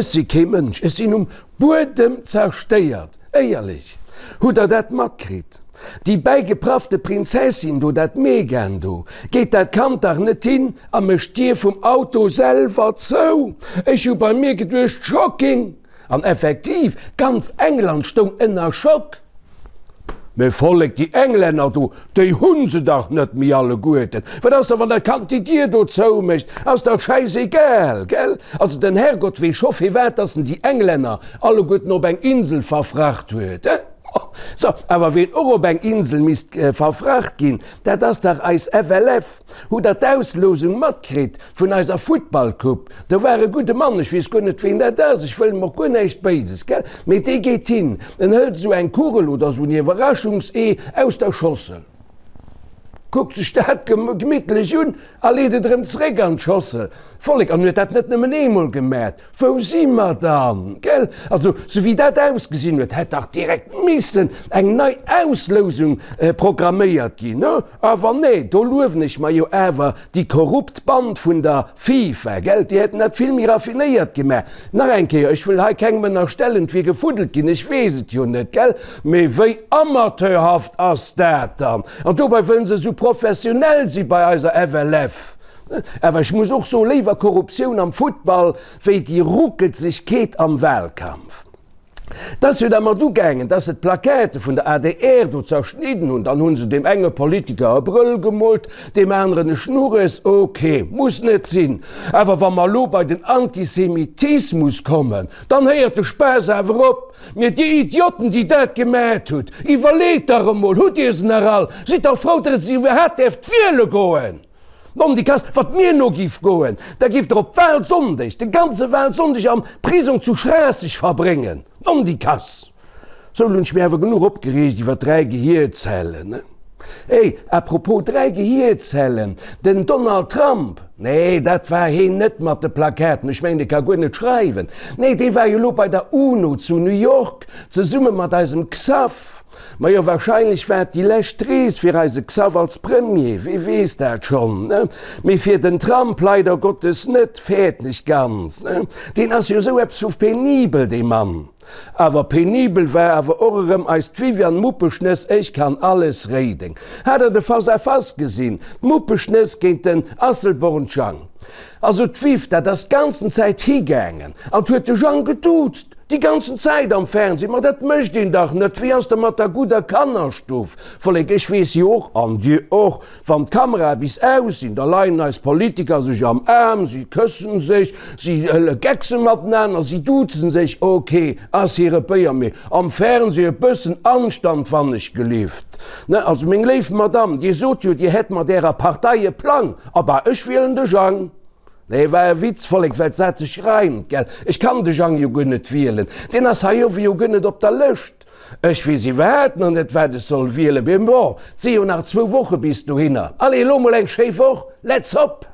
Ech si kee Mënsch, ech sinn um Buedem zerstéiert, éierlech. Hutt der dat matkritt? Déi bäigepraffte Prinzessin do, dat Meghan do, geet dat Kand dach net hin a mécht d'Dier vum Auto selwer zou? Ech hu bei mir geduecht, Shocking! An effektiv, ganz England stoung ënner Schock. Mee Vollek, déi Englänner do, déi hu se dach net méi alleguerten. Wat ass da, wann dat Kand déi Dier do zoumécht? Ass dach schäisegal, gell? Also den Herrgott weess scho firwat dass en déi Englänner alleguerten op eng Insel verfracht huet, he? So, awer ween och op eng Insel misst verfracht ginn, dat ass dach eis FLF. Hutt der d'Auslosung matkritt vun eiser Futtballcoupe? Do war e gudde Mann, ech weess guer net ween dat ass, ech wëll em och guer näischt Béises, gell, mee dee geet hin, en hëlt esou eng Kugel oder esou en Iwwerraschungsee aus der Schossel, kuckt sech dat gemittlech un a leet et erëm zeréck an d'Schossel. Vollek, an huet dat net nëmmen eemol gemat. Wou si mer dann? Gell? Also, sou wéi dat ausgesinn huet, hätt dach direkt missen eng nei Auslousung programméiert ginn, ne? Awer nee, do luewen ech mer jo awer déi korrupt Band vun der FIFA, gell? Déi hätten dat vill méi raffinéiert gemaach. Nach eng Kéier, ech wëll hei kengem ënnerstellen, et wier gefuddelt ginn, ech weess et jo net, gell? Mee wéi amateurhaft ass dat dann? An dobei wëllen se esou professionell si bei eiser FLF. Awer ech muss och soen, léiwer Korruptioun am Futtball wéi déi Ruckelzegkeet am Wahlkampf. Et ass jo da mat ugaangen, dass se d'Plaquette vun der adr do zerschnidden hunn. Dann hu se deem enge Politiker e Brëll gemoolt, deem aneren e Schnurres. Ok, muss net sinn. Awer wa mer elo bei den Antisemitismus kommen, dann héiert de Spaass awer op. Mee dir Idioten, déi dat gemat hutt, iwwerleet dach emol, hutt dir se nach all? Sidd dach frou, dass dir iwwerhaapt däerft wiele goen! Nondikass, wat mir no giff goen, da giff der op Wahlsonndeg, de ganze Wahlsonndeg am Prisong zu Schraasseg verbréngen. Nondikass! Sou, lo hunn ech mir awer genuch opgereegt iwwer 3 Gehierzellen. Hey, à propos 3 Gehierzellen, den Donald Trump, nee, dat war heen net mat de Plakaten, ech mengen, dee ka guer net schreiwen, nee, dee war jo lo bei der UNO zu New York, zesumme mat eisem Xaph. Majo, wahrscheinlech war et déi lescht Rees fir eise Xav als Premier, wee weess dat schonn, ne? Mee fir den Trump leider Gottes net, fäerten ech ganz, ne? Deen ass jo esou eppes vu penibel, dee Mann. Awer penibel war awer och erëm eist Viviane Muppeschnëss, ech kann alles réideng. Hat der de Face à Face gesinn? D'Muppeschnëss géint den Asselborn Jang. Also d'Viv, dat ass d'ganzen Zäit higaangen an huet de Jang geduuzt. Déi ganzen Zäit am Fernseh, ma dat mécht een dach net, wéi ass da mat der gudder Kannerstuff? Vollek, ech weess jo och, an Dir och, wann d'Kamerae bis aus sinn, da leien eis Politiker sech am Aarm, si këssen sech, si geckse matenaner, si duzen sech, ok, ass hire Béier, mee am Fernseh e bëssen Anstand wannechgelift, ne? Also meng léif Madame, Dir sot jo, Dir hätt mat Ärer Partei e Plang, abah, ech wielen de Jang. Nee, war e Witz, Vollek, well d'Saz sech reimt, gell? Ech kann de Jang jo guer net wielen, deen ass hei owe jo guer net op der Lëscht. Ech weess iwwerhaapt nach net, wat ech soll wielen, mee bon, 't si jo nach zwou Woche bis dohinner. Allez, elo mol eng schéi Woch, let's hop!